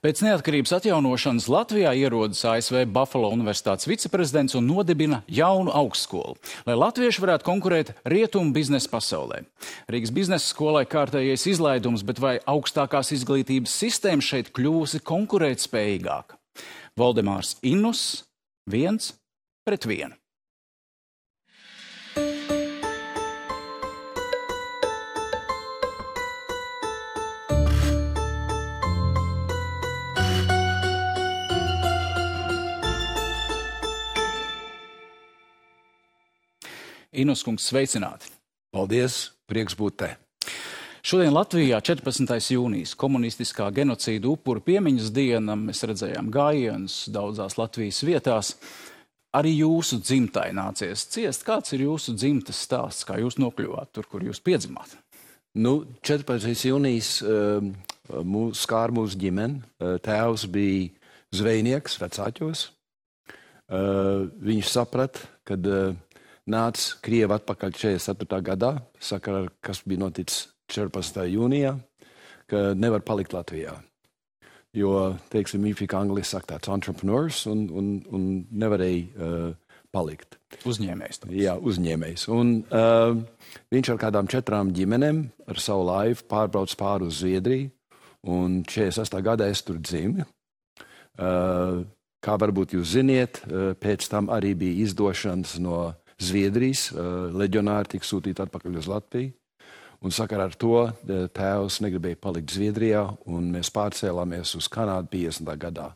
Pēc neatkarības atjaunošanas Latvijā ierodas ASV Buffalo Universitātes viceprezidents un nodibina jaunu augstskolu, lai latvieši varētu konkurēt rietumu biznesa pasaulē. Rīgas biznesa skolai kārtējais izlaidums, bet vai augstākās izglītības sistēma šeit kļūsi konkurētspējīgāka? Valdemārs Innus 1-1. Innus kungs, sveicināti. Paldies, prieks būt te. Šodien Latvijā 14. jūnijas komunistiskā genocīda upuru piemiņas diena. Mēs redzējām gājienus daudzās Latvijas vietās. Arī jūsu dzimtai nācies ciest. Kāds ir jūsu dzimtas stāsts? Kā jūs nokļuvāt tur, kur jūs piedzimāt? 14. jūnijas skār mūsu ģimeni. Tēvs bija zvejnieks vecāķos. Viņš saprata, kad nāca Krievi atpakaļ 44. gadā, sakarā, kas bija noticis 14. jūnijā, ka nevar palikt Latvijā. Jo, teiksim, viņš bija angliski saka tāds entrepreneurs un nevarēja palikt. Uzņēmējs. Jā, uzņēmējs. Un viņš ar kādām 4 ģimenēm ar savu laivu pārbrauc pāri uz Zviedriju, un 48. gadā es tur dzimu. Kā varbūt jūs ziniet, pēc tam arī bija izdošanas no Zviedrijas, leģionāri tika sūtīti atpakaļ uz Latviju. Un sakarā ar to tēvs negribēja palikt Zviedrijā, un mēs pārcēlāmies uz Kanādu 50. gadā.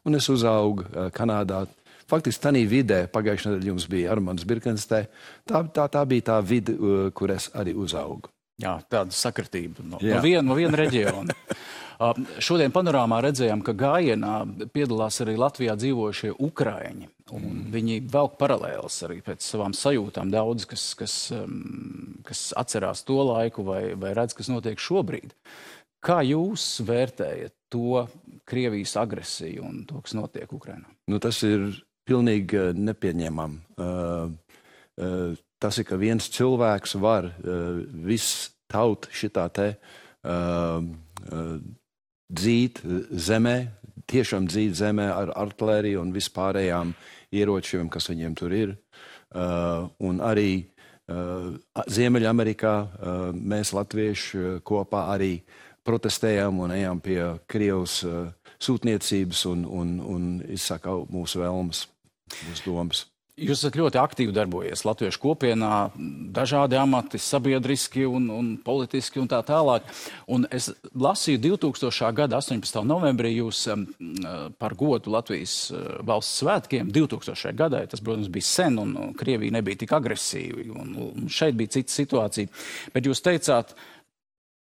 Un es uzaugu Kanādā. Faktiski tanī vidē, pagājušajā nedēļā jums bija Armands Birkenstē, tā bija tā vide, kur es arī uzaugu. Jā, tāda sakritība no viena reģiona. Šodien panorāmā redzējām, ka gājienā piedalās arī Latvijā dzīvojušie ukraiņi. Un viņi velk paralēlas arī pēc savām sajūtām. Daudz, kas atcerās to laiku vai redz, kas notiek šobrīd. Kā jūs vērtējat to Krievijas agresiju un to, kas notiek Ukrainā? Tas ir pilnīgi nepieņemam. Tas ir, ka viens cilvēks var viss taut šitā te dzīt zemē, tiešām dzīt zemē ar artilēriju un vispārējām ieročiem, kas viņiem tur ir. Un arī Ziemeļamerikā mēs latvieši kopā arī protestējām un ejām pie Krievijas sūtniecības un izsaka mūsu vēlmes, mūsu domas. Jūs esat ļoti aktīvi darbojies Latviešu kopienā, dažādi amati, sabiedriski un politiski un tā tālāk. Un es lasīju 2000. gada 18. novembrī jūs par godu Latvijas valsts svētkiem 2000. gadā. Tas, protams, bija sen un Krievija nebija tik agresīva un šeit bija cita situācija. Bet jūs teicāt,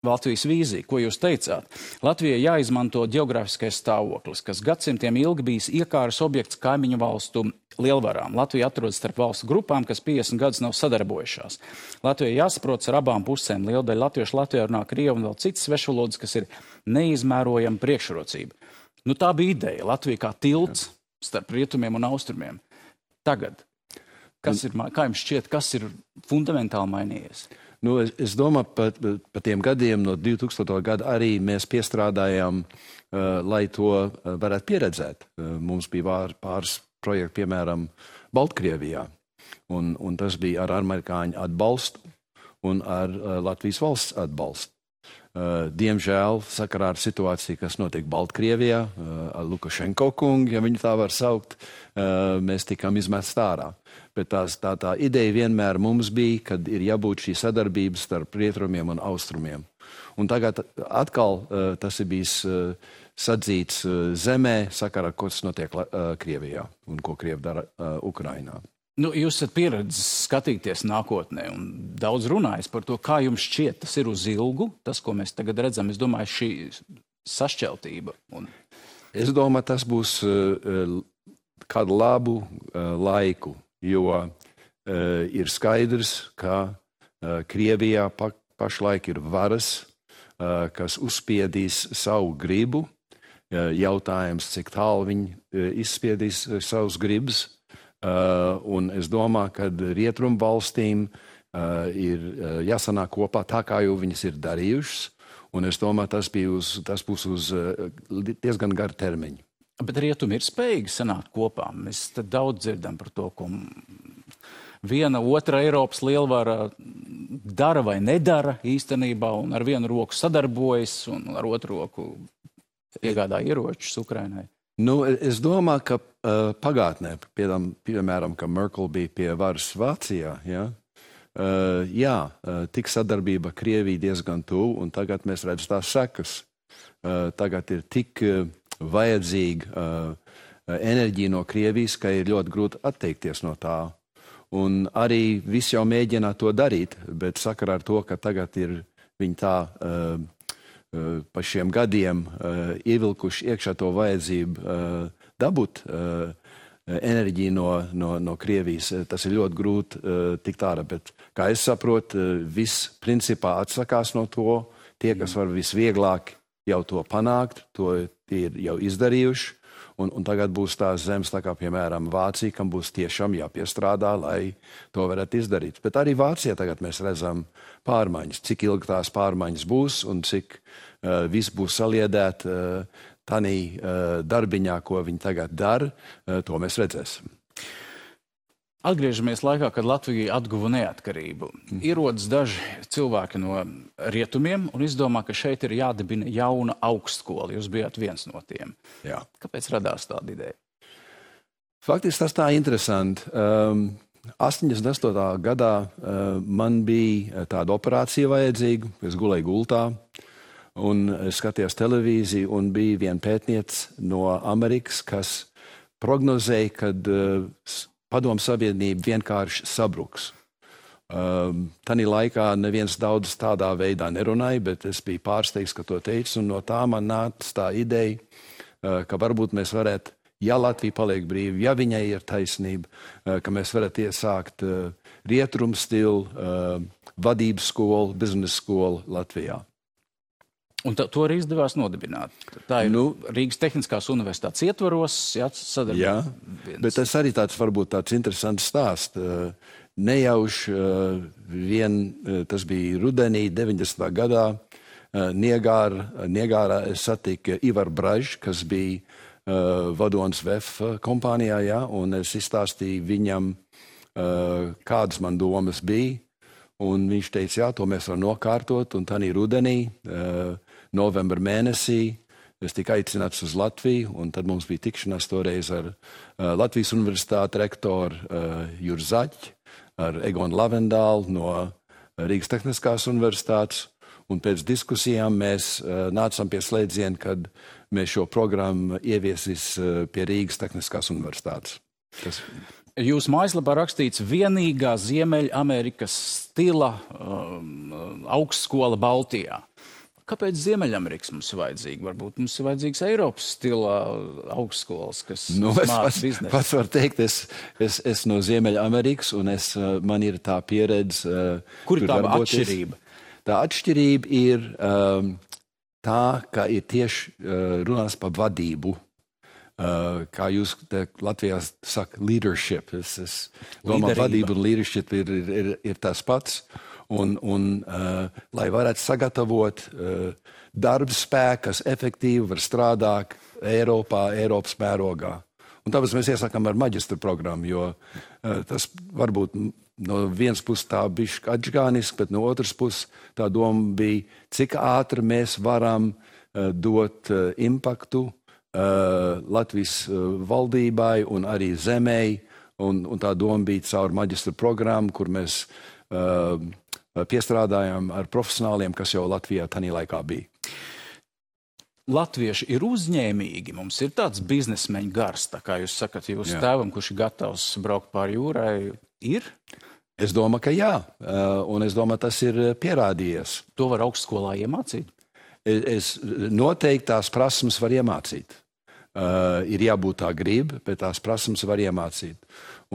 Latvijas vīzija, ko jūs teicāt? Latvijai jāizmanto ģeogrāfiskais stāvoklis, kas gadsimtiem ilgi bijis iekāras objekts kaimiņu valstu lielvarām. Latvija atrodas starp valstu grupām, kas 50 gadus nav sadarbojušās. Latvijai jāsaprotas ar abām pusēm. Liela daļa latviešu Latvijā runā krievu un vēl citas svešvalodas, kas ir neizmērojama priekšrocība. Tā bija ideja. Latvija kā tilts starp rietumiem un austrumiem. Tagad, kā jums šķiet, kas ir fundamentāli mainījies? Es domāju, pa tiem gadiem no 2000. gada arī mēs piestrādājām, lai to varētu pieredzēt. Mums bija pāris projekti, piemēram, Baltkrievijā. Un tas bija ar amerikāņu atbalstu un ar Latvijas valsts atbalstu. Diemžēl, sakarā ar situāciju, kas notiek Baltkrievijā, ar Lukašenko kungu, ja viņu tā var saukt, mēs tikām izmest ārā. Bet tā ideja vienmēr mums bija, kad ir jābūt šī sadarbība starp rietumiem un austrumiem. Un tagad atkal tas ir bijis sadzīts zemē, sakarā ar ko tas notiek Krievijā un ko Krievi dara Ukrainā. Jūs esat pieredzis skatīties nākotnē un daudz runājis par to, kā jums šķiet, tas ir uz ilgu, tas, ko mēs tagad redzam, es domāju, šī sašķeltība. Es domāju, tas būs kādu labu laiku, jo ir skaidrs, ka Krievijā pašlaik ir varas, kas uzspiedīs savu gribu. Jautājums, cik tālu viņi izspiedīs savus gribas. Un es domāju, ka rietumu valstīm ir jāsanāk kopā tā, kā jau viņas ir darījušas. Un es domāju, tas būs uz diezgan garu termiņu. Bet rietumi ir spējīgi sanākt kopā. Mēs te daudz dzirdam par to, ko viena otra Eiropas lielvara dara vai nedara īstenībā, un ar vienu roku sadarbojas, un ar otru roku iegādā ieročus Ukrainai. Nu, es domāju, ka pagātnē, piemēram, ka Merkel bija pie varas Vācijā, tik sadarbība Krievija diezgan tuvu, un tagad mēs redzam tās sekas. Tagad ir tik vajadzīga enerģija no Krievijas, ka ir ļoti grūti atteikties no tā. Un arī visi jau mēģina to darīt, bet sakarā ar to, ka tagad ir viņi tā pa šiem gadiem ievilkuši iekšā to vajadzību dabūt enerģiju no Krievijas. Tas ir ļoti grūti tikt ārā, bet, kā es saprotu, viss principā atsakās no to. Tie, kas var visvieglāk jau to panākt, to ir jau izdarījuši. Un tagad būs tās zemes, tā kā, piemēram, Vācija, kam būs tiešām jāpiestrādā, lai to varētu izdarīt. Bet arī Vācijā tagad mēs redzam pārmaiņas, cik ilgi tās pārmaiņas būs un cik viss būs saliedēt tanī darbiņā, ko viņi tagad dara, to mēs redzēsim. Atgriežamies laikā, kad Latvija atguva neatkarību. Ierodas daži cilvēki no rietumiem un izdomā, ka šeit ir jādibina jauna augstskola. Jūs bijāt viens no tiem. Jā. Kāpēc radās tāda ideja? Faktiski tas tā interesanti. 88. gadā man bija tāda operācija vajadzīga. Es gulēju gultā un skatījos televīziju un bija viena pētniece no Amerikas, kas prognozēja, kad padomu sabiedrība vienkārši sabruks. Tanī laikā neviens daudz tādā veidā nerunāja, bet es biju pārsteigts, ka to teicu, un no tā man nāca tā ideja, ka varbūt mēs varētu, ja Latvija paliek brīva, ja viņai ir taisnība, ka mēs varētu iesākt rietumu stilu vadības skolu, biznesa skolu Latvijā. Un to arī izdevās nodibināt. Tā ir Rīgas Tehniskās universitātes ietvaros, sadarbība. Jā, bet tas arī varbūt tāds interesants stāsts. Nejauši tas bija rudenī 90. gadā. Niegārā es satiku Ivaru Bražu, kas bija vadonis VEF kompānijā, un es izstāstīju viņam, kādas man domas bija. Un viņš teica, jā, to mēs varam nokārtot, un tanī rudenī, novembra mēnesī, es tiku aicināts uz Latviju, un tad mums bija tikšanās toreiz ar Latvijas universitāti rektoru Juru Zaķi, ar Egonu Lavendālu no Rīgas Tehniskās universitātes, un pēc diskusijām mēs nācām pie slēdziena, kad mēs šo programmu ieviesīs pie Rīgas Tehniskās universitātes. Jūsu mājaslapā rakstīts vienīgā Ziemeļamerikas stila augstskola Baltijā. Kāpēc Ziemeļamerikas mums ir vajadzīga? Varbūt mums ir vajadzīgs Eiropas stila augstskolas, kas māca biznesu. Pats var teikt, es no Ziemeļamerikas, un man ir tā pieredze. Kur ir tā atšķirība? Tā atšķirība ir tā, ka ir tieši runās par vadību. Kā jūs Latvijā saka, leadership. Es domāju, vadība un leadership ir tas pats. Un lai varētu sagatavot darba spēku, kas efektīvi var strādāt Eiropas mērogā. Un tāpēc mēs iesākam ar maģistra programmu, jo tas varbūt no vienas puses tā bišķi atžgāniski, bet no otras puses tā doma bija, cik ātri mēs varam dot impaktu Latvijas valdībai un arī zemei, un tā doma bija caur maģistra programmu, kur mēs piestrādājām ar profesionāliem, kas jau Latvijā tanī laikā bija. Latvieši ir uzņēmīgi, mums ir tāds biznesmeņu gars, tā kā jūs sakat, jūsu tēvam, kurš ir gatavs braukt pāri jūrai, ir? Es domāju, ka jā, un es domāju, tas ir pierādījies. To var augstskolā iemācīt? Es noteikti tās prasmes var iemācīt. Ir jābūt tā griba, bet tās prasmes var iemācīt.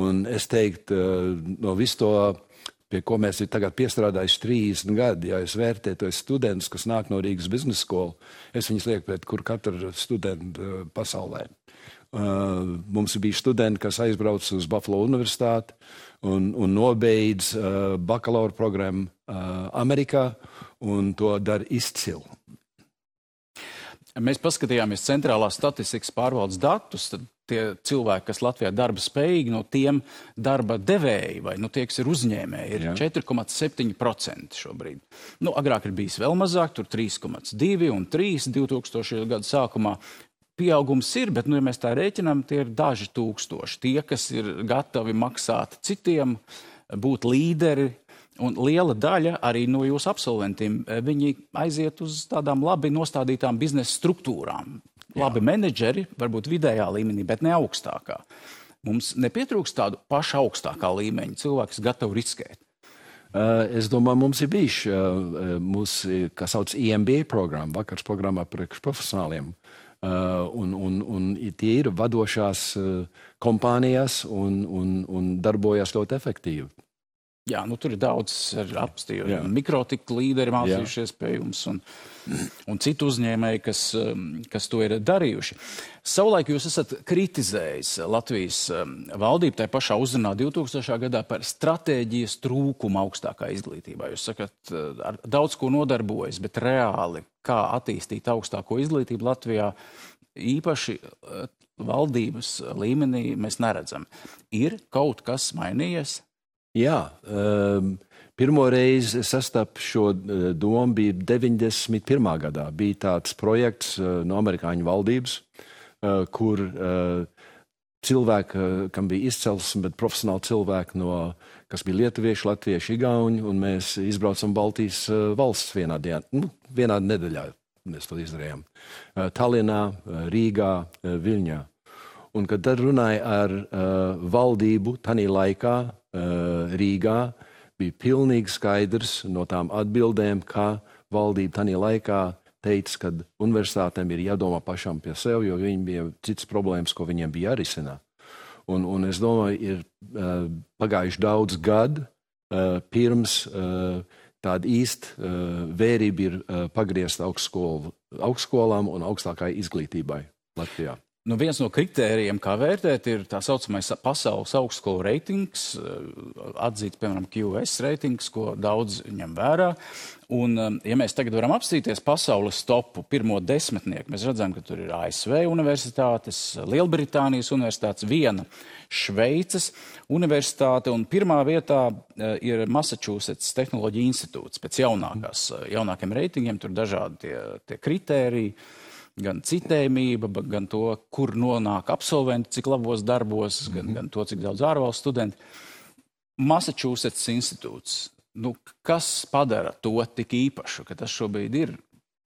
Un es teiktu, no visu to, pie ko mēs ir tagad piestrādājuši 30 gadi, ja es vērtēju tos studentus, kas nāk no Rīgas biznesa skolu, es viņus lieku pret kur katru studentu pasaulē. Mums bija studenti, kas aizbrauc uz Buffalo universitāti un nobeidz bakalaura programmu Amerikā, un to dara izcili. Mēs paskatījāmies centrālās statistikas pārvaldes datus, tad tie cilvēki, kas Latvijā darba spējīgi, no tiem darba devēji vai tie, kas ir uzņēmēji, ir 4,7% šobrīd. Agrāk ir bijis vēl mazāk, tur 3,2 un 3 2000. Gadu sākumā. Pieaugums ir, bet, ja mēs tā rēķinām, tie ir daži tūkstoši. Tie, kas ir gatavi maksāt citiem, būt līderi, un liela daļa arī no jūsu absolventiem, viņi aiziet uz tādām labi nostādītām biznesa struktūrām. Labi menedžeri, varbūt vidējā līmenī, bet ne augstākā. Mums nepietrūkst tādu pašu augstākā līmeņa cilvēku, kas gatavi riskēt. Es domāju, mums ir bijuši mūsu, kā sauc, EMBA programma, vakars programmā priekš profesionāliem. Un tie ir vadošās kompānijas un darbojas ļoti efektīvi. Jā, tur ir daudz apstīju. Mikrotika līderi mācījušies pie jums un citu uzņēmēji, kas to ir darījuši. Savulaik jūs esat kritizējis Latvijas valdību tajā pašā uzrunā 2000. Gadā par stratēģijas trūkumu augstākā izglītībā. Jūs sakat, ar daudz ko nodarbojas, bet reāli, kā attīstīt augstāko izglītību Latvijā, īpaši valdības līmenī mēs neredzam. Ir kaut kas mainījies? Jā, pirmo reizi sastapu šo domu bija 91. gadā. Bija tāds projekts no amerikāņu valdības, kur cilvēki, kam bija izcelsme, bet profesionāli cilvēki, kas bija lietuvieši, latvieši, igauņi, un mēs izbraucam Baltijas valsts vienā dienā, vienā nedēļā mēs to izdarījām. Tallinā, Rīgā, Viļņā. Un kad tad runāja ar valdību tanī laikā, Rīgā, bija pilnīgi skaidrs no tām atbildēm, ka valdība tanī laikā teica, ka universitātēm ir jādomā pašam pie sev, jo viņi bija citas problēmas, ko viņiem bija jārisina. Un es domāju, ir pagājuši daudz gadu, pirms tāda īsta vērība ir pagriezta augstskolām un augstākai izglītībai Latvijā. Viens no kritērijiem, kā vērtēt, ir tā saucamais pasaules augstskolu reitings, atzīts, piemēram, QS reitings, ko daudz ņem vērā. Un, ja mēs tagad varam apstīties pasaules topu pirmo desmitnieku, mēs redzam, ka tur ir ASV universitātes, Lielbritānijas universitātes, viena Šveices universitāte, un pirmā vietā ir Massachusetts Tehnoloģija institūts pēc jaunākiem reitingiem, tur dažādi tie kritēriji. Gan citējumība, gan to, kur nonāk absolventi, cik labos darbos, gan to, cik daudz ārvalstu studenti. Massachusetts institūts. Kas padara to tik īpašu, ka tas šobrīd ir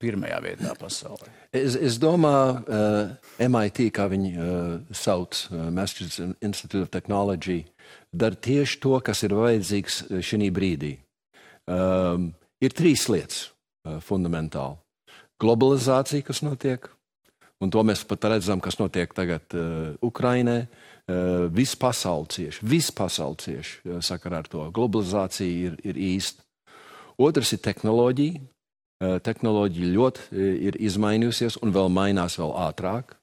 pirmajā vietā pasaulē? Es domāju, MIT, kā viņi sauc, Massachusetts Institute of Technology, dara tieši to, kas ir vajadzīgs šī brīdī. Ir 3 lietas fundamentāli. Globalizācija, kas notiek, un to mēs pat redzam, kas notiek tagad Ukrainē. Viss pasauli cieši sakarā ar to. Globalizācija ir īsta. Otrs ir tehnoloģija. Tehnoloģija ļoti ir izmainījusies un vēl mainās vēl ātrāk.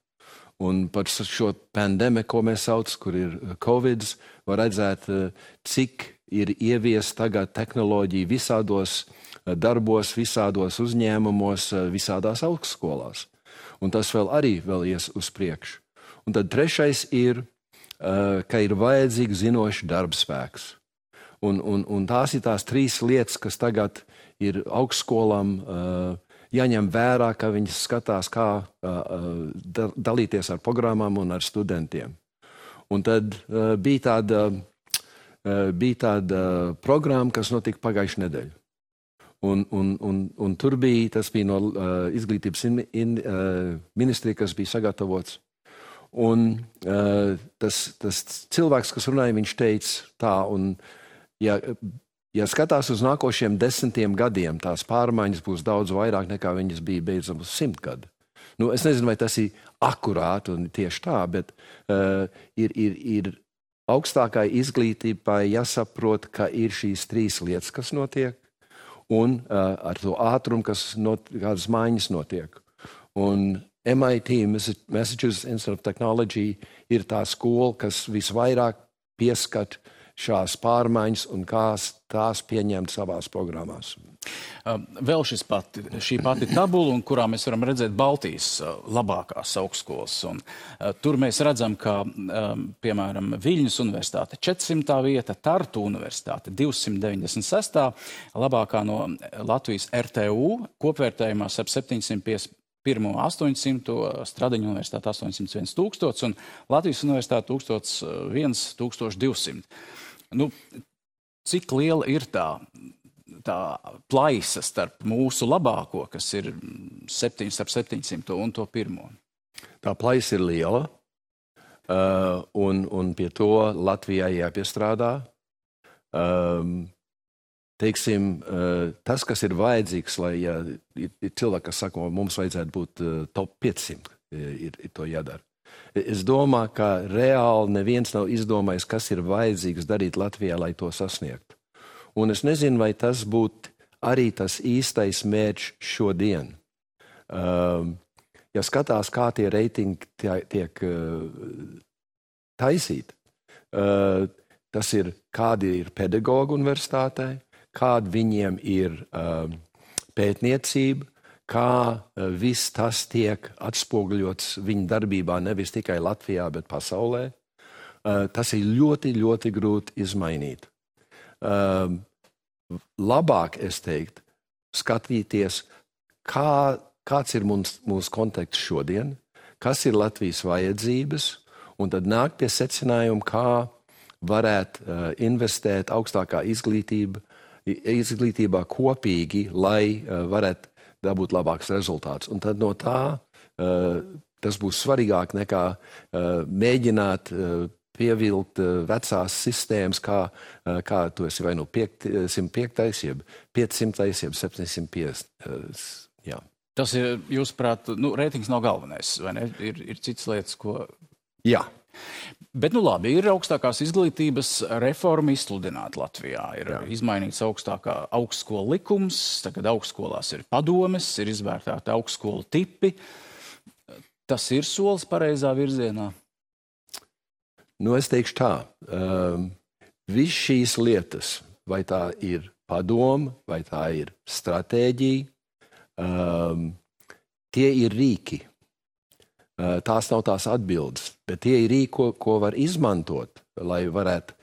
Un par šo pandēmiju, ko mēs sauc, kur ir Covid, var redzēt, cik ir ievies tagad tehnoloģija visādos darbos, visādos uzņēmumos, visādās augstskolās. Un tas vēl ies uz priekšu. Un tad trešais ir, ka ir vajadzīgs zinošs darbspēks. Un tās ir tās 3 lietas, kas tagad ir augstskolām jāņem vērā, ka viņi skatās, kā dalīties ar programmām un ar studentiem. Un tad bija tāda programma, kas notika pagājušajā nedēļā. Un tur tas bija no izglītības ministrija, kas bija sagatavots. Un tas cilvēks, kas runāja, viņš teica tā, un ja skatās uz nākošiem 10 gadiem, tās pārmaiņas būs daudz vairāk nekā viņas bija beidzam uz 100 gadu. Es nezinu, vai tas ir akurāti un tieši tā, bet ir augstākai izglītībai jāsaprot, ka ir šīs 3 lietas, kas notiek, un ar to ātrumu, kādas maiņas notiek. Un MIT, Massachusetts Institute of Technology, ir tā skola, kas visvairāk pieskat šās pārmaiņas un kā tās pieņemt savās programmās. Vēl šī pati tabula, un kurā mēs varam redzēt Baltijas labākās augstskolas. Un, tur mēs redzam, ka, piemēram, Viļņas universitāte 400. vieta, Tartu universitāte 296. labākā no Latvijas RTU, kopvērtējumā ar 751 800, Stradiņu universitāte 801 000 un Latvijas universitāte 1200. Nu, cik liela ir tā plaisa starp mūsu labāko, kas ir 700 un to pirmo? Tā plaisa ir liela, un pie to Latvijai jāpiestrādā. Teiksim, tas, kas ir vajadzīgs, lai ir cilvēki, kas saka, mums vajadzētu būt top 500, ir to jādara. Es domāju, ka reāli neviens nav izdomājis, kas ir vajadzīgs darīt Latvijā, lai to sasniegtu. Un es nezinu, vai tas būtu arī tas īstais mērķis šodien. Ja skatās, kā tie reitingi tiek taisīti, tas ir, kādi ir pedagogi universitātē, kāda viņiem ir pētniecība, kā viss tas tiek atspoguļots viņa darbībā nevis tikai Latvijā, bet pasaulē. Tas ir ļoti, ļoti grūti izmainīt. Labāk, es teiktu, skatīties, kāds ir mūsu konteksts šodien, kas ir Latvijas vajadzības, un tad nākt pie secinājuma, kā varētu investēt augstākā izglītībā kopīgi, lai varētu dabūt labāks rezultāts. Un tad no tā tas būs svarīgāk nekā mēģināt pievilkt vecās sistēmas, kā tu esi vai nu 105, jeb 500, jeb 750. Jā. Tas ir, jūsuprāt, reitings nav galvenais, vai ne? Ir citas lietas, ko... Jā. Bet, labi, ir augstākās izglītības reforma izsludināta Latvijā. Ir izmainīts augstskolu likums, tagad augstskolās ir padomes, ir izvērtēti augstskolu tipi. Tas ir solis pareizā virzienā? Es teikšu tā, viss šīs lietas, vai tā ir padoma, vai tā ir stratēģija, tie ir rīki. Tās nav tās atbildes, bet tie ir rīki, ko var izmantot, lai varētu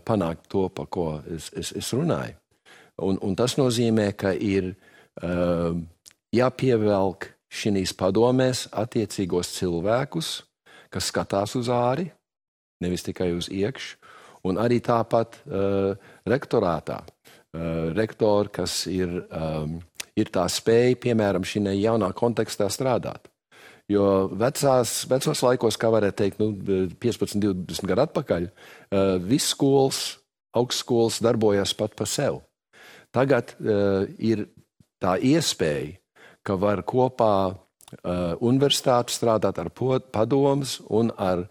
panākt to, pa ko es runāju. Un tas nozīmē, ka ir jāpievelk šīs padomēs attiecīgos cilvēkus, kas skatās uz āri, nevis tikai uz iekšu, un arī tāpat rektorātā. Rektori, kas ir tā spēja, piemēram, šī jaunā kontekstā strādāt. Jo vecos laikos, kā varētu teikt, 15, 20 gadu atpakaļ, viss augstskolas darbojas pat pa sev. Tagad ir tā iespēja, ka var kopā universitāti strādāt ar padomas un ar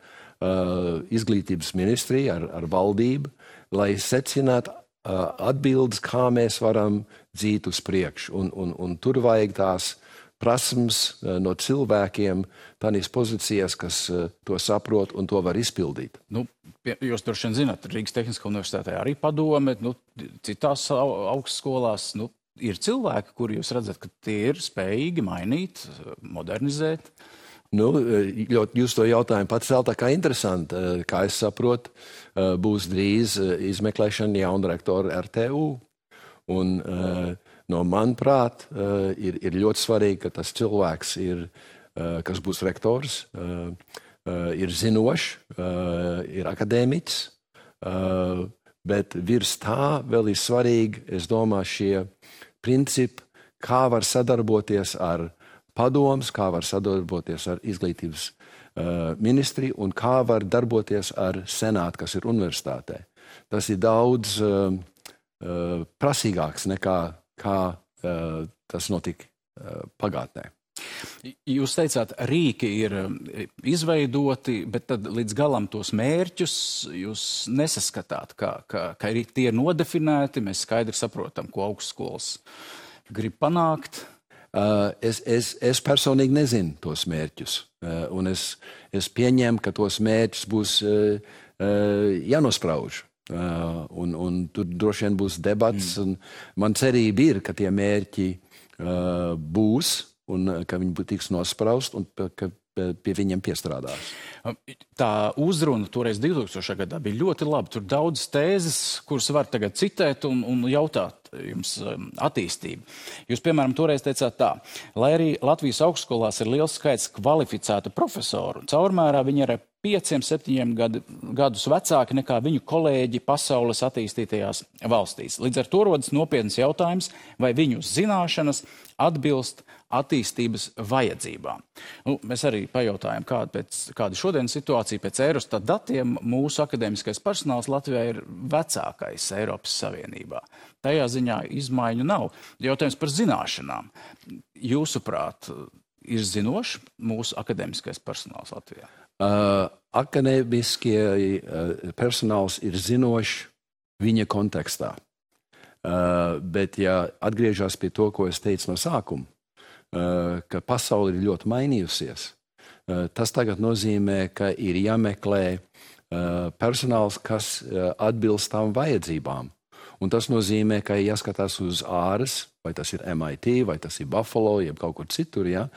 izglītības ministriju, ar valdību, lai secinātu atbildes, kā mēs varam dzīt uz priekšu. Un tur vajag tās prasmes no cilvēkiem, tādās pozīcijās, kas to saprot un to var izpildīt. Jūs droši vien zināt, Rīgas Tehniskā universitātē arī padome, citās augstskolās, ir cilvēki, kuri jūs redzat, ka tie ir spējīgi mainīt, modernizēt. Jūs to jautājumu pats vēl tā kā interesanti. Kā es saprotu, būs drīz izmeklēšana jauna rektora RTU. Un manuprāt, ir ļoti svarīgi, ka tas cilvēks, kas būs rektors, ir zinošs, ir akadēmiķis, bet virs tā vēl ir svarīgi, es domāju, šie principi, kā var sadarboties ar padomus, kā var sadarboties ar izglītības ministriju un kā var darboties ar senātu, kas ir universitātē. Tas ir daudz prasīgāks nekā tas notika pagātnē. Jūs teicāt, rīki ir izveidoti, bet tad līdz galam tos mērķus jūs nesaskatāt, ka tie ir nodefinēti, mēs skaidri saprotam, ko augstskolas grib panākt. Es personīgi nezinu tos mērķus, un es pieņemu, ka tos mērķus būs jānosprauž. Un tur droši vien būs debats. Un man cerība ir, ka tie mērķi būs un ka viņi tiks nospraust un ka pie viņiem piestrādās. Tā uzruna toreiz 2000. gadā bija ļoti laba. Tur daudz tēzes, kuras var tagad citēt un jautāt jums attīstību. Jūs, piemēram, toreiz teicāt tā, lai arī Latvijas augstskolās ir liels skaits kvalificētu profesoru, caurmērā viņi ir 5-7 gadus vecāki nekā viņu kolēģi pasaules attīstītajās valstīs. Līdz ar to rodas nopietns jautājums, vai viņu zināšanas atbilst attīstības vajadzībām. Mēs arī pajautājām, kāda šodienas situācija pēc Eurostat datiem. Mūsu akadēmiskais personāls Latvijā ir vecākais Eiropas Savienībā. Tajā ziņā izmaiņu nav. Jautājums par zināšanām. Jūsuprāt, ir zinošs mūsu akadēmiskais personāls Latvijā? Akadēmiskie personāls ir zinošs viņa kontekstā. Bet, ja atgriežas pie to, ko es teicu no sākuma, ka pasaule ir ļoti mainījusies, tas tagad nozīmē, ka ir jāmeklē personāls, kas atbilst tām vajadzībām. Un tas nozīmē, ka jāskatās uz āras, vai tas ir MIT, vai tas ir Buffalo, jeb kaut kur citur, ja?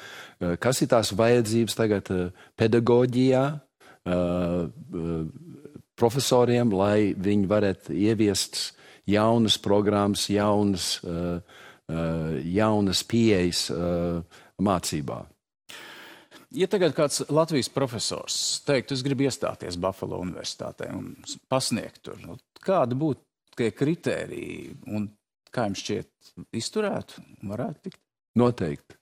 Kas ir tās vajadzības tagad pedagoģijā, profesoriem, lai viņi varētu ieviest jaunas programmas, jaunas pieejas mācībā. Ja tagad kāds Latvijas profesors teiktu, es gribu iestāties Buffalo universitātē un pasniegt tur, kāda būtu tie kritēriji un kā jums šķiet izturētu, varētu tikt? Noteikti.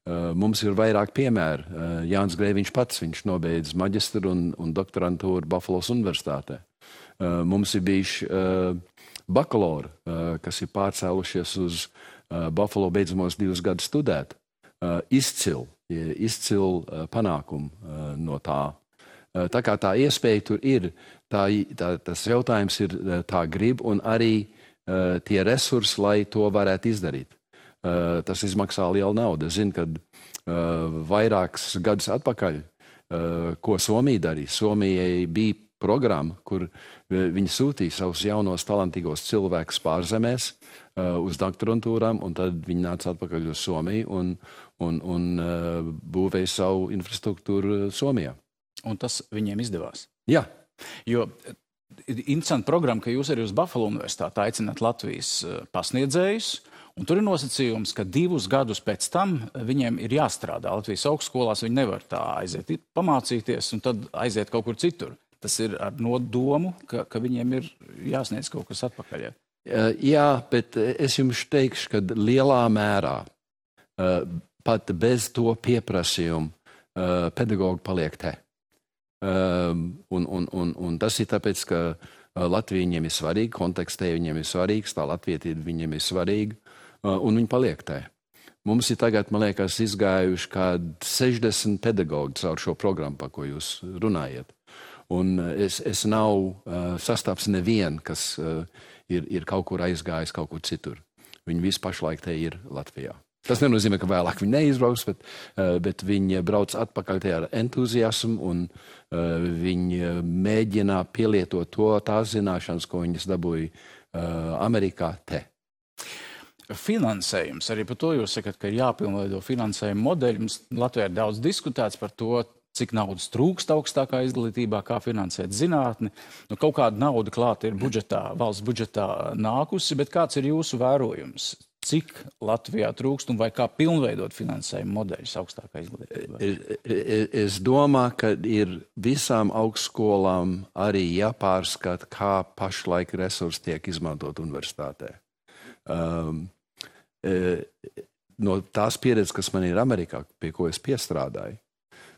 Mums ir vairāk piemēru. Jānis Grēviņš pats, viņš nobeidz maģistru un doktorantūru Buffalo universitātē. Mums ir bijuši bakalauri, kas ir pārcēlušies uz Buffalo beidzamos 2 gadus studēt. Izcil panākumu no tā. Tā kā tā iespēja tur ir, tas jautājums ir tā grib un arī tie resursi, lai to varētu izdarīt. Tas izmaksā lielu naudu. Es zinu, ka vairākus gadus atpakaļ, ko Somija darīja. Somijai bija programma, kur viņi sūtīja savus jaunos talantīgos cilvēkus pārzemēs uz doktorantūrām, un tad viņi nāca atpakaļ uz Somiju un būvēja savu infrastruktūru Somijā. Un tas viņiem izdevās? Jā. Jo interesanti programma, ka jūs arī uz Buffalo universitāti aicināt Latvijas pasniedzējus, un tur ir nosacījums, ka 2 gadus pēc tam viņiem ir jāstrādā Latvijas augstskolās, viņi nevar tā aiziet pamācīties un tad aiziet kaut kur citur. Tas ir ar nodomu, ka viņiem ir jāsniedz kaut kas atpakaļ. Jā, bet es jums teikšu, ka lielā mērā pat bez to pieprasījumu pedagogi paliek te. Un tas ir tāpēc, ka Latvija viņiem ir svarīga, kontekstē viņiem ir svarīgs, tā latvietība viņiem ir svarīga, un viņi paliek te. Mums ir tagad, man liekas, izgājuši kād 60 pedagogi caur šo programmu, par ko jūs runājat. Un es nav sastaps nevienu, kas ir kaut kur aizgājis kaut kur citur. Viņi visi pašlaik te ir Latvijā. Tas nenozīmē, ka vēlāk viņi neizbrauks, bet viņi brauc atpakaļ te ar entuziasmu un viņi mēģina pielietot tās zināšanas, ko viņas dabūja Amerikā te. Finansējums, arī par to jūs sakat, ka ir jāpilnveido finansējuma modeļi. Mums Latvijā ir daudz diskutēts par to, cik naudas trūkst augstākā izglītībā, kā finansēt zinātni. Kaut kāda nauda klāta ir valsts budžetā nākusi, bet kāds ir jūsu vērojums? Cik Latvijā trūkst un vai kā pilnveidot finansējuma modeļus augstākā izglītībā? Es domāju, ka ir visām augstskolām arī jāpārskata, kā pašlaik resursi tiek izmantot universitātē. No tās pieredzes, kas man ir Amerikā, pie ko es piestrādāju,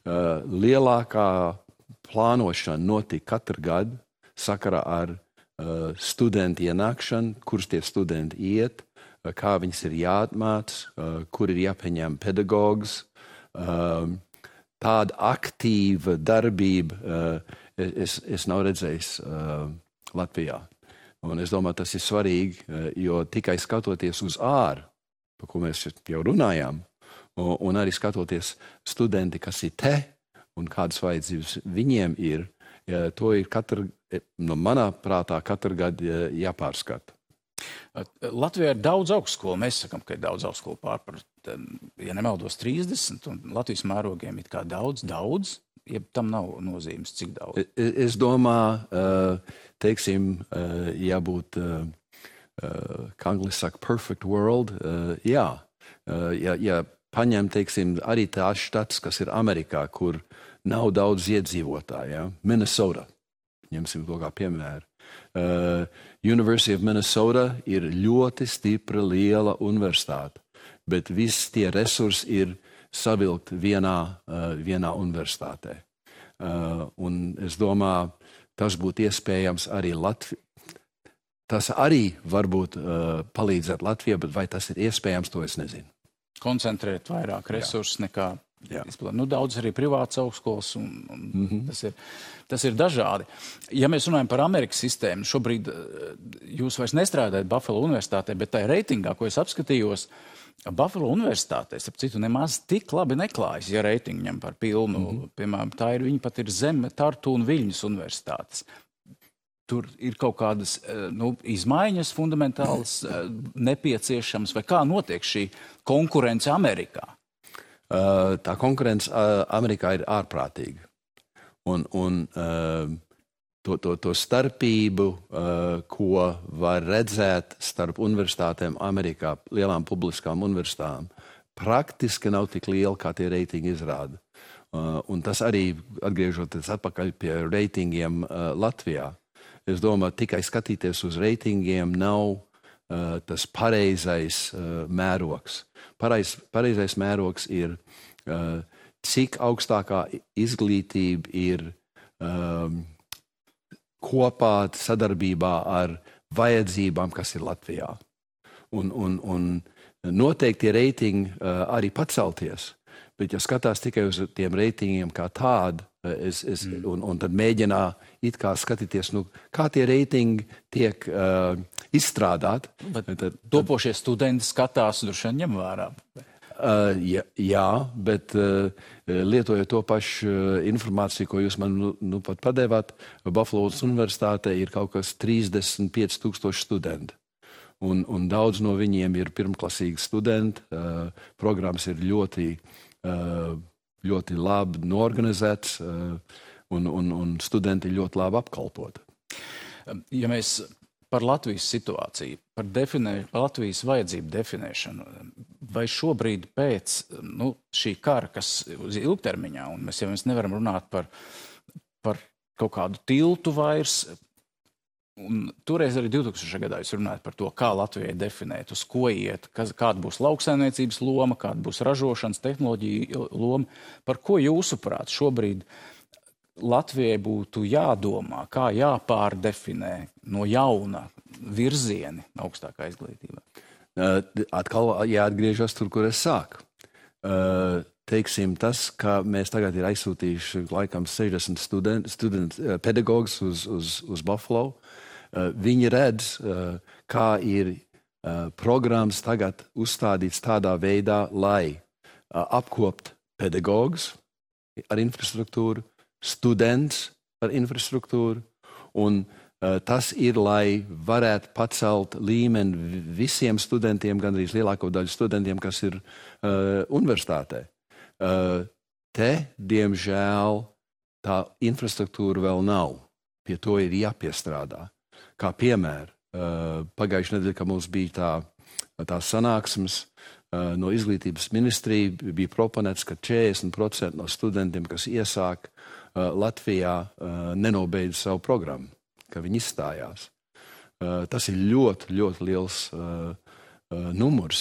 lielākā plānošana notika katru gadu sakarā ar studentu ienākšanu, kurš tie studenti iet, kā viņas ir jāatmāc, kur ir jāpieņem pedagogs. Tāda aktīva darbība es nav redzējis Latvijā. Un es domāju, tas ir svarīgi, jo tikai skatoties uz āru, par ko mēs jau runājām, un arī skatoties studenti, kas ir te un kādas vajadzības viņiem ir, to ir no manā prātā katru gadu jāpārskata. Latvijā ir daudz augstskolu. Mēs sakam, ka ir daudz augstskolu pārpar, ja nemaldos, 30, un Latvijas mērogiem ir kā daudz, ja tam nav nozīmes, cik daudz. Es domāju, teiksim, jābūt, kā angļuiski saka, perfect world, jā. Ja paņem, teiksim, arī tās štats, kas ir Amerikā, kur nav daudz iedzīvotāju, ja? Minnesota, ņemsim to kā piemēru. University of Minnesota ir ļoti stipra, liela universitāte, bet visi tie resursi ir savilkt vienā universitātē. Un es domāju, tas būtu iespējams arī Latvijā. Tas arī varbūt palīdzēt Latvijai, bet vai tas ir iespējams, to es nezinu. Koncentrēt vairāk resursus nekā izplatīt. Daudz arī privātas augstskolas, un tas ir dažādi. Ja mēs runājam par Amerikas sistēmu, šobrīd jūs vairs nestrādājat Buffalo universitātē, bet tā reitingā, ko es apskatījos, Buffalo universitātē, starp citu, nemaz tik labi neklājas, ja reitingu ņem par pilnu. Piemēram, viņa pat ir zem Tartu un Viļņas universitātes. Tur ir kaut kādas izmaiņas fundamentālas nepieciešams, vai kā notiek šī konkurence Amerikā? Tā konkurence Amerikā ir ārprātīga. Un to starpību, ko var redzēt starp universitātēm Amerikā, lielām publiskām universitātēm, praktiski nav tik liela, kā tie reitingi izrāda. Un tas arī, atgriežoties atpakaļ pie reitingiem Latvijā, es domāju, tikai skatīties uz reitingiem nav tas pareizais mērogs. Pareizais mērogs ir, cik augstākā izglītība ir kopā sadarbībā ar vajadzībām, kas ir Latvijā. Un noteikti tie reitingi arī pacelties, bet ja skatās tikai uz tiem reitingiem kā tādu, un tad mēģinā it kā skatīties, kā tie reitingi tiek izstrādāti. Bet topošie studenti skatās, droši vien ņem vērā. Jā, bet lietojot to pašu informāciju, ko jūs man pat padevāt, Buffalo universitātē ir kaut kas 35,000 studenti. Un daudz no viņiem ir pirmklasīgi studenti. Programmas ir ļoti labi norganizēts, un studenti ir ļoti labi apkalpoti. Ja mēs par Latvijas situāciju, par Latvijas vajadzību definēšanu, vai šobrīd pēc šī kara, kas uz ilgtermiņā, un mēs nevaram runāt par kaut kādu tiltu vairs, un toreiz arī 2000. Gadā jūs runājat par to, kā Latvijai definēt, uz ko iet, kāda būs lauksaimniecības loma, kāda būs ražošanas tehnoloģija loma. Par ko jūsuprāt šobrīd Latvijai būtu jādomā, kā jāpārdefinē no jauna virzieni augstākā izglītībā? Atkal jāatgriežas tur, kur es sāku. Teiksim tas, ka mēs tagad ir aizsūtījuši laikam 60 pedagogus uz Buffalo. Viņi redz, kā ir programmas tagad uzstādīts tādā veidā, lai apkopt pedagogus ar infrastruktūru, students ar infrastruktūru, un tas ir, lai varētu pacelt līmeni visiem studentiem, gandrīz lielāko daļu studentiem, kas ir universitātē. Te, diemžēl, tā infrastruktūra vēl nav. Pie to ir jāpiestrādā. Kā piemēr, pagājušajā nedēļā, kad mums bija tā sanāksmes no izglītības ministrija, bija proponēts, ka 40% no studentiem, kas iesāk Latvijā, nenobeidz savu programmu, ka viņi izstājās. Tas ir ļoti, ļoti liels numurs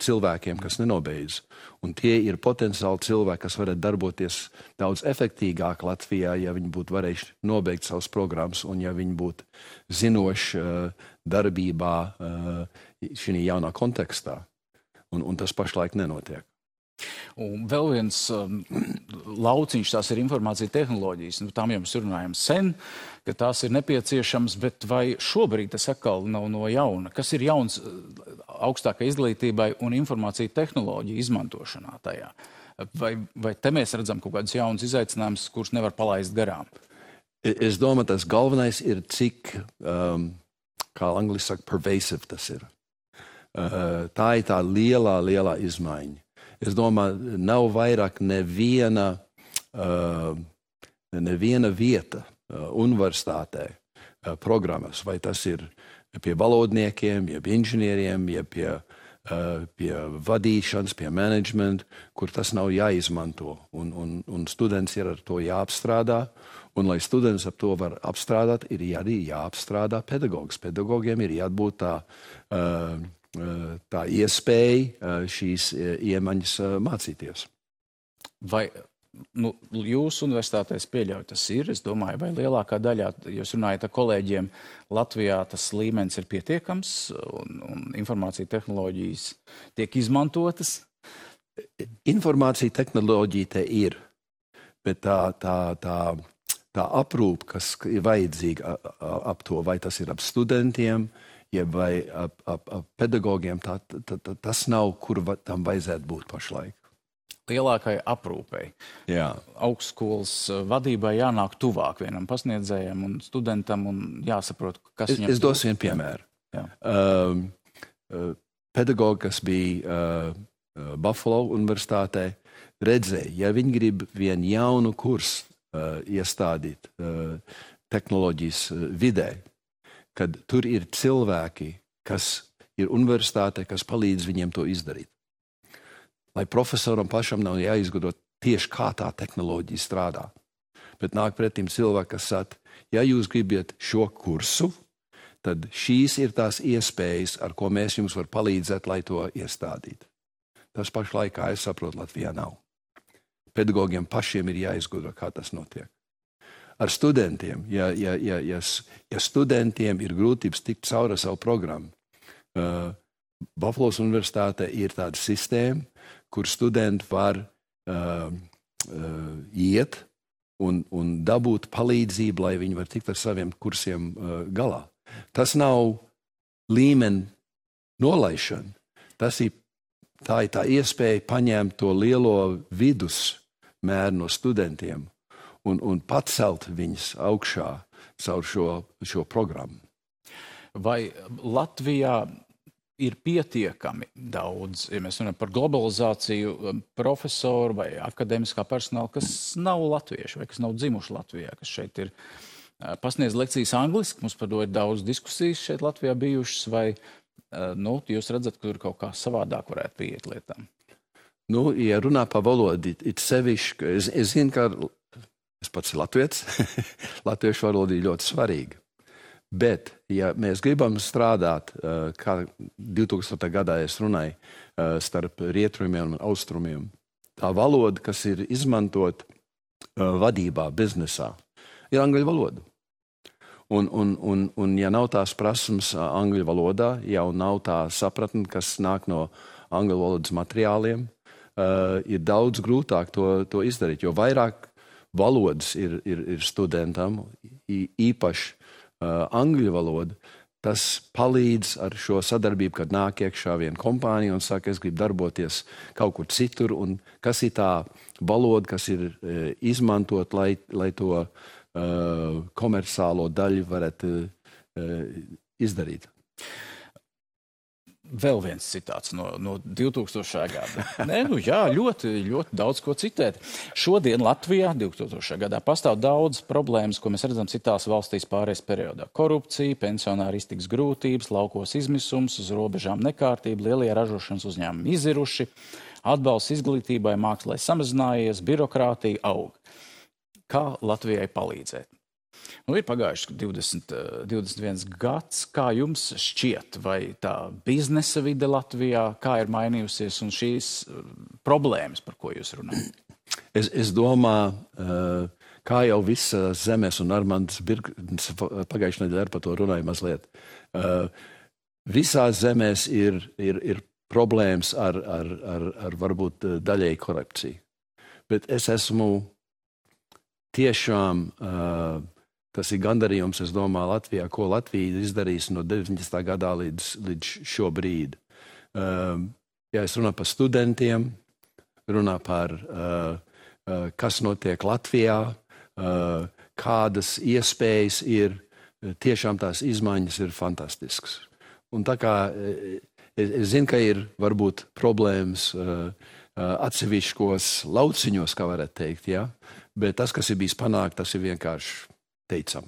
cilvēkiem, kas nenobeidz. Un tie ir potenciāli cilvēki, kas varētu darboties daudz efektīgāk Latvijā, ja viņi būtu varējuši nobeigt savas programmas un ja viņi būtu zinoši darbībā šī jaunā kontekstā. Un tas pašlaik nenotiek. Un vēl viens lauciņš, tās ir informācija tehnoloģijas. Tām jau mēs runājam sen, ka tās ir nepieciešams, bet vai šobrīd tas atkal nav no jauna? Kas ir jauns augstākai izglītībai un informācija tehnoloģija izmantošanā tajā? Vai te mēs redzam kaut kādus jaunus izaicinājumus, kurus nevar palaist garām? Es domāju, tas galvenais ir, cik, kā angliski saka, pervasive tas ir. Tā ir tā lielā izmaiņa. Es domāju, nav vairāk neviena vieta universitātē programmas, vai tas ir pie valodniekiem, jeb inženieriem, jeb pie vadīšanas, pie menedžmenta, kur tas nav jāizmanto. Un students ir ar to jāapstrādā. Un, lai students ap to var apstrādāt, ir arī jāapstrādā pedagogs. Pedagogiem ir jābūt tā iespēja šīs iemaņas mācīties. Vai jūsu universitātēs pieļauj tas ir? Es domāju, vai lielākā daļā, jūs runājat ar kolēģiem, Latvijā tas līmenis ir pietiekams un informācija tehnoloģijas tiek izmantotas? Informācija tehnoloģija te ir, bet tā aprūpe, kas ir vajadzīga ap to, vai tas ir ap studentiem, vai ap pedagogiem, tas nav, kur tam vajadzētu būt pašlaik. Lielākai aprūpei. Jā. Augstskolas vadībai jānāk tuvāk vienam pasniedzējam un studentam un jāsaprot, kas viņam... Es došu vienu piemēru. Pedagogi, kas bija Buffalo universitātē, redzēja, ja viņi grib vienu jaunu kursu iestādīt tehnoloģijas vidē, kad tur ir cilvēki, kas ir universitātē, kas palīdz viņiem to izdarīt. Lai profesoram pašam nav jāizgudro tieši kā tā tehnoloģija strādā. Bet nāk pretim cilvēki, kas saka, ja jūs gribat šo kursu, tad šīs ir tās iespējas, ar ko mēs jums var palīdzēt, lai to iestādītu. Tas pašlaik, kā es saprotu, Latvijā nav. Pedagogiem pašiem ir jāizgudro, kā tas notiek. Ar studentiem, ja studentiem ir grūtības tikt cauri savu programmu, Buffalo universitāte ir tāda sistēma, kur studenti var iet un dabūt palīdzību, lai viņi var tikt ar saviem kursiem galā. Tas nav līmeni nolaišana. Tā ir tā iespēja paņemt to lielo vidusmēru no studentiem un pacelt viņus augšā caur šo programmu. Vai Latvijā ir pietiekami daudz, ja mēs runājam par globalizāciju, profesoru vai akadēmiskā personāla, kas nav latvieši vai kas nav dzimuši Latvijā, kas šeit ir pasniedz lekcijas angliski, mums par to ir daudz diskusijas šeit Latvijā bijušas, vai jūs redzat, ka tur kaut kā savādāk varētu pieiet lietām? Ja runā par valodu, it sevišķi, es zinu, ka es pats ir latvietis, latviešu valoda ir ļoti svarīga. Bet, ja mēs gribam strādāt, kā 2000. gadā es runāju, starp rietumiem un austrumiem, tā valoda, kas ir izmantot vadībā, biznesā, ir angļu valoda. Un ja nav tās prasmes angļu valodā, jau nav tā sapratne, kas nāk no angļu valodas materiāliem, ir daudz grūtāk to izdarīt, jo vairāk valodas ir studentam, īpaši angļu valoda, tas palīdz ar šo sadarbību, kad nāk iekšā viena kompānija un saka, es gribu darboties kaut kur citur, un kas ir tā valoda, kas ir izmantot, lai to komerciālo daļu varētu izdarīt. Vēl viens citāts no 2000. gada. Ļoti daudz ko citēt. Šodien Latvijā 2000. gadā pastāv daudz problēmas, ko mēs redzam citās valstīs pārējais periodā. Korupcija, pensionāri iztiks grūtības, laukos izmisums, uz robežām nekārtība, lielie ražošanas uzņēmumi iziruši, atbalsts izglītībai, mākslai samazinājies, birokrātija aug. Kā Latvijai palīdzēt? Ir pagājuši 21 gads. Kā jums šķiet, vai tā biznesa vide Latvijā, kā ir mainījusies un šīs problēmas, par ko jūs runājat? Es domāju, kā jau visa zemes un Armands Birgns pagājušajā nedēļā par to runāja mazliet. Visās zemēs ir problēmas ar varbūt daļēji korupciju. Bet es esmu tiešām... Tas ir gandarījums, es domāju, Latvijā, ko Latvija izdarīs no 90. gadā līdz šo brīdi. Ja es runāju par studentiem, runāju par, kas notiek Latvijā, kādas iespējas ir, tiešām tās izmaiņas ir fantastiskas. Un tā kā es zinu, ka ir varbūt problēmas atsevišķos lauciņos, kā varētu teikt, ja? Bet tas, kas ir bijis panākt, tas ir vienkārši teicam.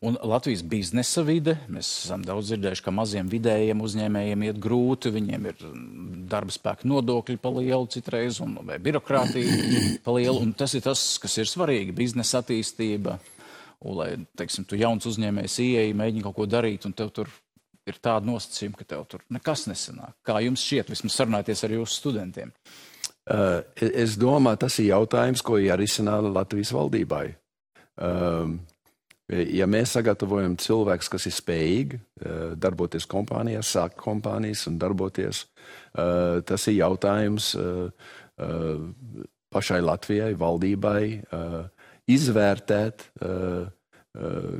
Un Latvijas biznesa vide, mēs esam daudz dzirdējuši, ka maziem vidējiem uzņēmējiem iet grūti, viņiem ir darba spēka nodokļi pa lielu citreiz, vai birokrātija pa lielu, un tas ir tas, kas ir svarīgi, biznesa attīstība, un lai, teiksim, tu jauns uzņēmējs ieeji, mēģini kaut ko darīt, un tev tur ir tāda nosacījuma, ka tev tur nekas nesanāk. Kā jums šķiet, vismaz sarunāties ar jūsu studentiem? Es domāju, tas ir jautājums, ko jārisina Latvijas valdībai. Ja mēs sagatavojam cilvēkus, kas ir spējīgi darboties kompānijās, sākt kompānijas un darboties, tas ir jautājums pašai Latvijai, valdībai, izvērtēt,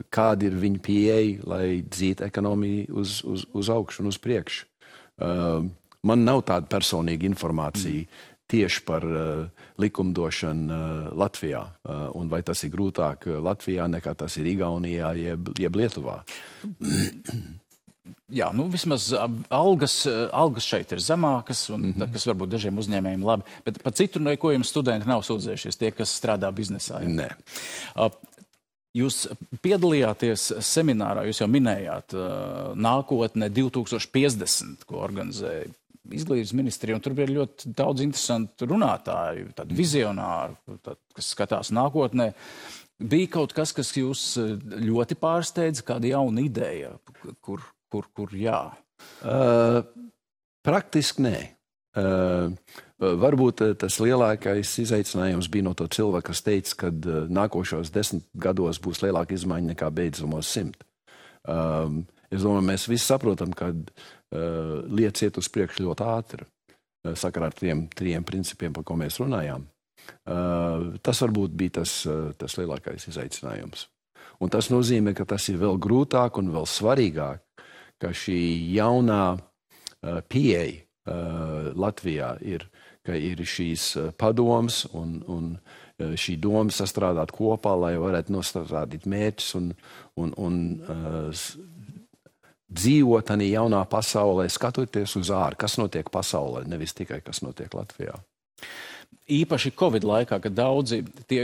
kāda ir viņa pieeja, lai dzītu ekonomiju uz augšu un uz priekšu. Man nav tāda personīga informācija tieši par likumdošanu Latvijā, un vai tas ir grūtāk Latvijā nekā tas ir Igaunijā jeb Lietuvā. Jā, nu vismaz algas šeit ir zemākas, un kas varbūt dažiem uzņēmējiem labi, bet par citu neko jums studenti nav sūdzējušies, tie, kas strādā biznesā. Ja? Nē. Jūs piedalījāties seminārā, jūs jau minējāt nākotne 2050, ko organizēja Izglītības ministrija, un tur bija ļoti daudz interesantu runātāju, tādu vizionāru, kas skatās nākotnē. Bija kaut kas, kas jūs ļoti pārsteidza, kāda jauna ideja, kur jā? Praktiski nē. Varbūt tas lielākais izaicinājums bija no to cilvēka, kas teica, ka nākošos 10 gados būs lielāka izmaiņa nekā beidzamos 100. Es domāju, mēs visi saprotam, ka lietas iet uz priekšu ļoti ātri, sakarā ar tiem 3 principiem, par ko mēs runājām. Tas varbūt bija tas lielākais izaicinājums. Un tas nozīmē, ka tas ir vēl grūtāk un vēl svarīgāk, ka šī jaunā pieeja Latvijā ir, ka ir šīs padomas un šī doma sastrādāt kopā, lai varētu nostrādāt mērķus un dzīvot tādā jaunā pasaulē, skatoties uz ārā, kas notiek pasaulē, nevis tikai kas notiek Latvijā. Īpaši Covid laikā, kad daudzi tie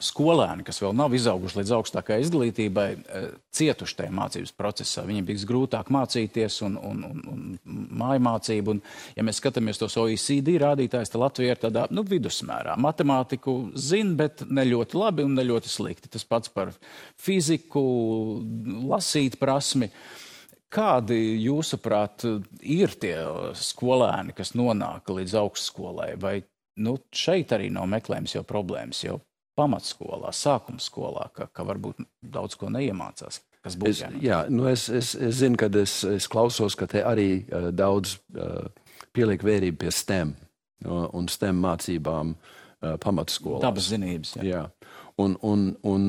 skolēni, kas vēl nav izauguši līdz augstākai izglītībai, cietuši tajā mācības procesā. Viņiem bija grūtāk mācīties un mājmācību. Un, ja mēs skatāmies tos OECD rādītājus, tad Latvija ir tādā vidusmērā. Matemātiku zina, bet ne ļoti labi un ne ļoti slikti. Tas pats par fiziku, lasīt prasmi. Kādi, jūsuprāt, ir tie skolēni, kas nonāk līdz augstskolai? Vai šeit arī nav meklējums jau problēmas, jau pamatskolā, sākuma skolā, ka varbūt daudz ko neiemācās? Kas būs jānāk? Jā, es zinu, kad es klausos, ka te arī daudz pieliek vērību pie STEM un STEM mācībām pamatskolās. Dabas zinības, jā. Jā. Un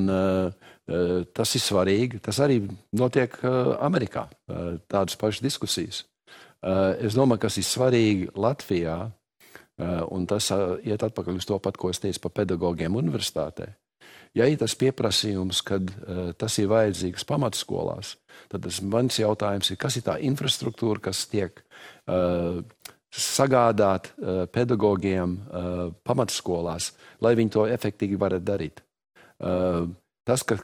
tas ir svarīgi. Tas arī notiek Amerikā, tādas pašas diskusijas. Es domāju, kas ir svarīgi Latvijā, un tas iet atpakaļ uz to pat, ko es teicu par pedagogiem universitātē. Ja ir tas pieprasījums, kad tas ir vajadzīgs pamatskolās, tad mans jautājums ir, kas ir tā infrastruktūra, kas tiek sagādāt pedagogiem pamatskolās, lai viņi to efektīvi varētu darīt. Tas, ka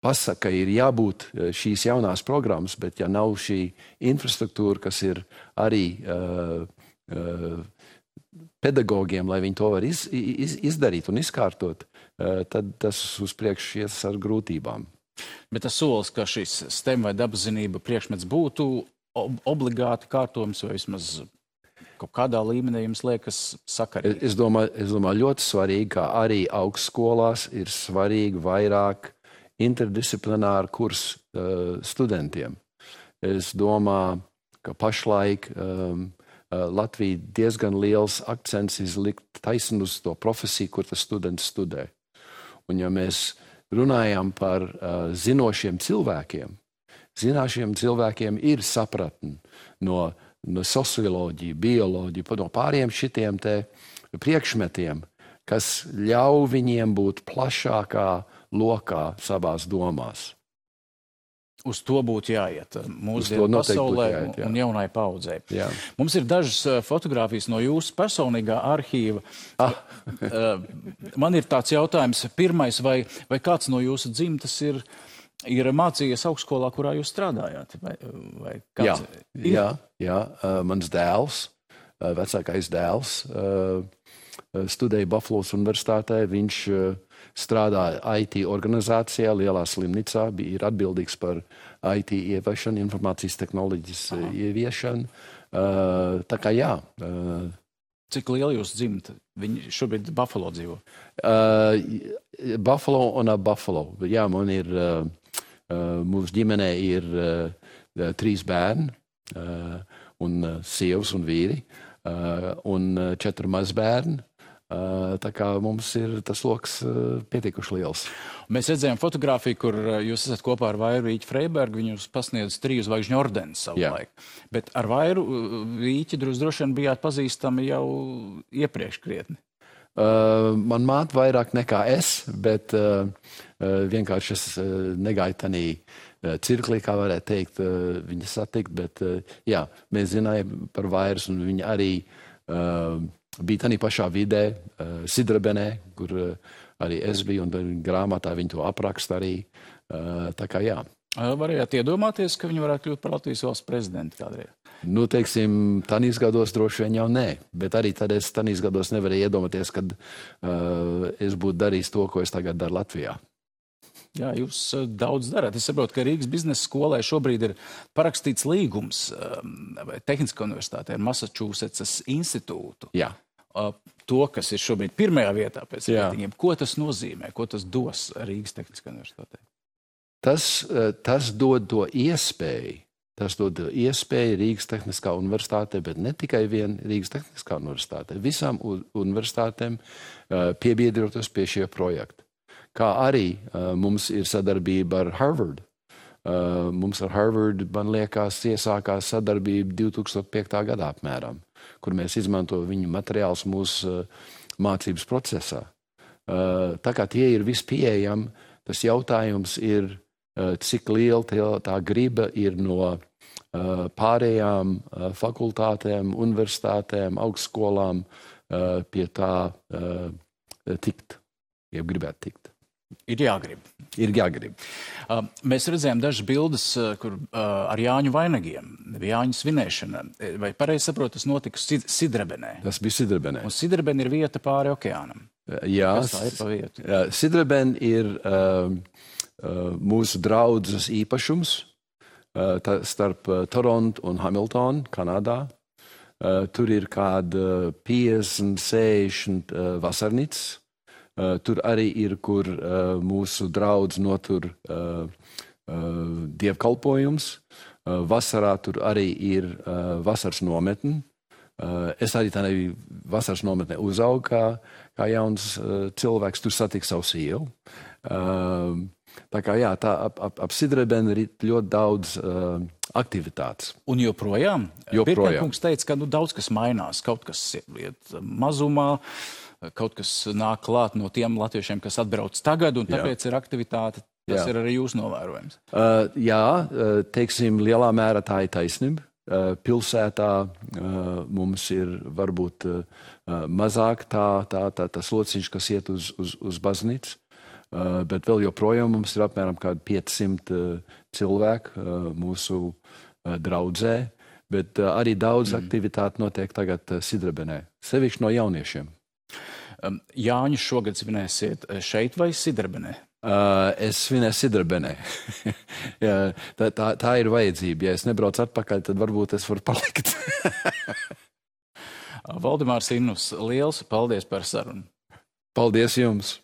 pasaka, ir jābūt šīs jaunās programmas, bet ja nav šī infrastruktūra, kas ir arī pedagogiem, lai viņi to var izdarīt un izkārtot, tad tas uz priekšu ies ar grūtībām. Bet tas solis, ka šis STEM vai dabaszinība priekšmets būtu obligāti kārtojums vai vismaz kaut kādā līmenī jums liekas sakarīgi? Es domāju ļoti svarīgi, ka arī augstskolās ir svarīgi vairāk interdisciplināru kursu studentiem. Es domāju, ka pašlaik Latvija diezgan liels akcents izlikt taisni uz to profesiju, kur tas students studē. Un ja mēs runājam par zinošiem cilvēkiem, zinošiem cilvēkiem ir sapratni no socioloģija, bioloģija, no pāriem šitiem te priekšmetiem, kas ļauj viņiem būt plašākā lokā savās domās. Uz to būtu jāiet mūsdienu pasaulē un jaunai paudzei. Jā. Mums ir dažas fotogrāfijas no jūsu personīgā arhīva. Man ir tāds jautājums. Pirmais, vai kāds no jūsu dzimtas ir mācījies augstskolā, kurā jūs strādājāt? Vai kāds jā. Mans dēls, vecākais dēls, studēja Buffalo's universitātē. Viņš strādāja IT organizācijā, lielā slimnīcā, ir atbildīgs par IT ieviešanu, informācijas tehnoloģijas ieviešanu. Tā kā jā. Cik liela jūs dzimta? Viņi šobrīd Buffalo dzīvo? Buffalo un Buffalo. Jā, man ir, mūsu ģimenē ir 3 bērni, un sievas un vīri, un 4 mazbērni. Tā kā mums ir tas loks pietiekuši liels. Mēs redzējām fotogrāfiju, kur jūs esat kopā ar Vairu Vīķi Freibergu. Viņu pasniedz 3 zvaigžņu ordeni savulaik. Bet ar Vairu Vīķi droši vien bijāt pazīstami jau iepriekš krietni. Man māte vairāk nekā es, bet vienkārši es negāju tanī cirklī, kā varētu teikt, viņa satikt. Bet jā, mēs zinājām par Vairas, un viņa arī bija tādā pašā vidē, Sidrabenē, kur arī es biju, un grāmatā viņi to apraksta arī. Tā kā jā. Varējāt iedomāties, ka viņi varētu kļūt par Latvijas valsts prezidentu kādreiz? Nu, teiksim, tanīs gados droši vien jau nē, bet arī tad es tanīs gados nevarēju iedomāties, kad es būtu darījis to, ko es tagad daru Latvijā. Jā, jūs daudz darāt. Es saprotu, ka Rīgas biznesa skolai šobrīd ir parakstīts līgums Tehniskā universitātē ar Massachusetts institūtu. Jā. To, kas ir šobrīd pirmajā vietā pēc reitingiem. Ko tas nozīmē? Ko tas dos Rīgas Tehniskā universitātē? Tas dod to iespēju. Tas dod iespēju Rīgas Tehniskā universitātē, bet ne tikai vien Rīgas Tehniskā universitātē. Visām universitātēm piebiedroties pie šie projekti. Kā arī mums ir sadarbība ar Harvard. Mums ar Harvard, man liekas, iesākās sadarbība 2005. gadā apmēram, kur mēs izmantojam viņu materiālus mūsu mācības procesā. Tā kā tie ir vispieejami, tas jautājums ir, cik liela tā griba ir no pārējām fakultātēm, universitātēm, augstskolām pie tā tikt, ja gribētu tikt. Ir jāgrib. Ir jāgrib. Mēs redzējām dažas bildes, kur ar Jāņu vainagiem, Jāņu svinēšana. Vai pareizi saprotu, tas notika Sidrabenē? Tas bija Sidrabenē. Un Sidrabene ir vieta pāri okeānam. Jā, kas tā ir pa vietu? Sidrabene ir mūsu draudzes īpašums starp Toronto un Hamilton, Kanādā. Tur ir kāda 50-60 vasarnīcas. Tur arī ir, kur mūsu draudz notur dievkalpojums. Vasarā tur arī ir vasaras nometne. Es arī tādā vasaras nometnē uzaugu kā jauns cilvēks. Tur satiku savu sievu. Tā kā jā, tā ap Sidrabeni ir ļoti daudz aktivitātes. Un joprojām? Pirkņkungs teica, ka daudz kas mainās, kaut kas iet mazumā. Kaut kas nāk klāt no tiem latviešiem, kas atbrauc tagad, un tāpēc ir aktivitāte. Tas ir arī jūs novērojams. Jā, teiksim, lielā mērā tā ir taisnība. Pilsētā mums ir varbūt mazāk tas lociņš, kas iet uz baznīcu, bet vēl joprojām mums ir apmēram kādi 500 cilvēku mūsu draudzē, bet arī daudz aktivitāti notiek tagad Sidrabenē, sevišķi no jauniešiem. Jāņu šogad svinēsiet šeit vai Sidrabenē? Es svinēju Sidrabenē. tā ir vajadzība. Ja es nebraucu atpakaļ, tad varbūt es varu palikt. Valdemārs Innus, liels paldies par sarunu. Paldies jums!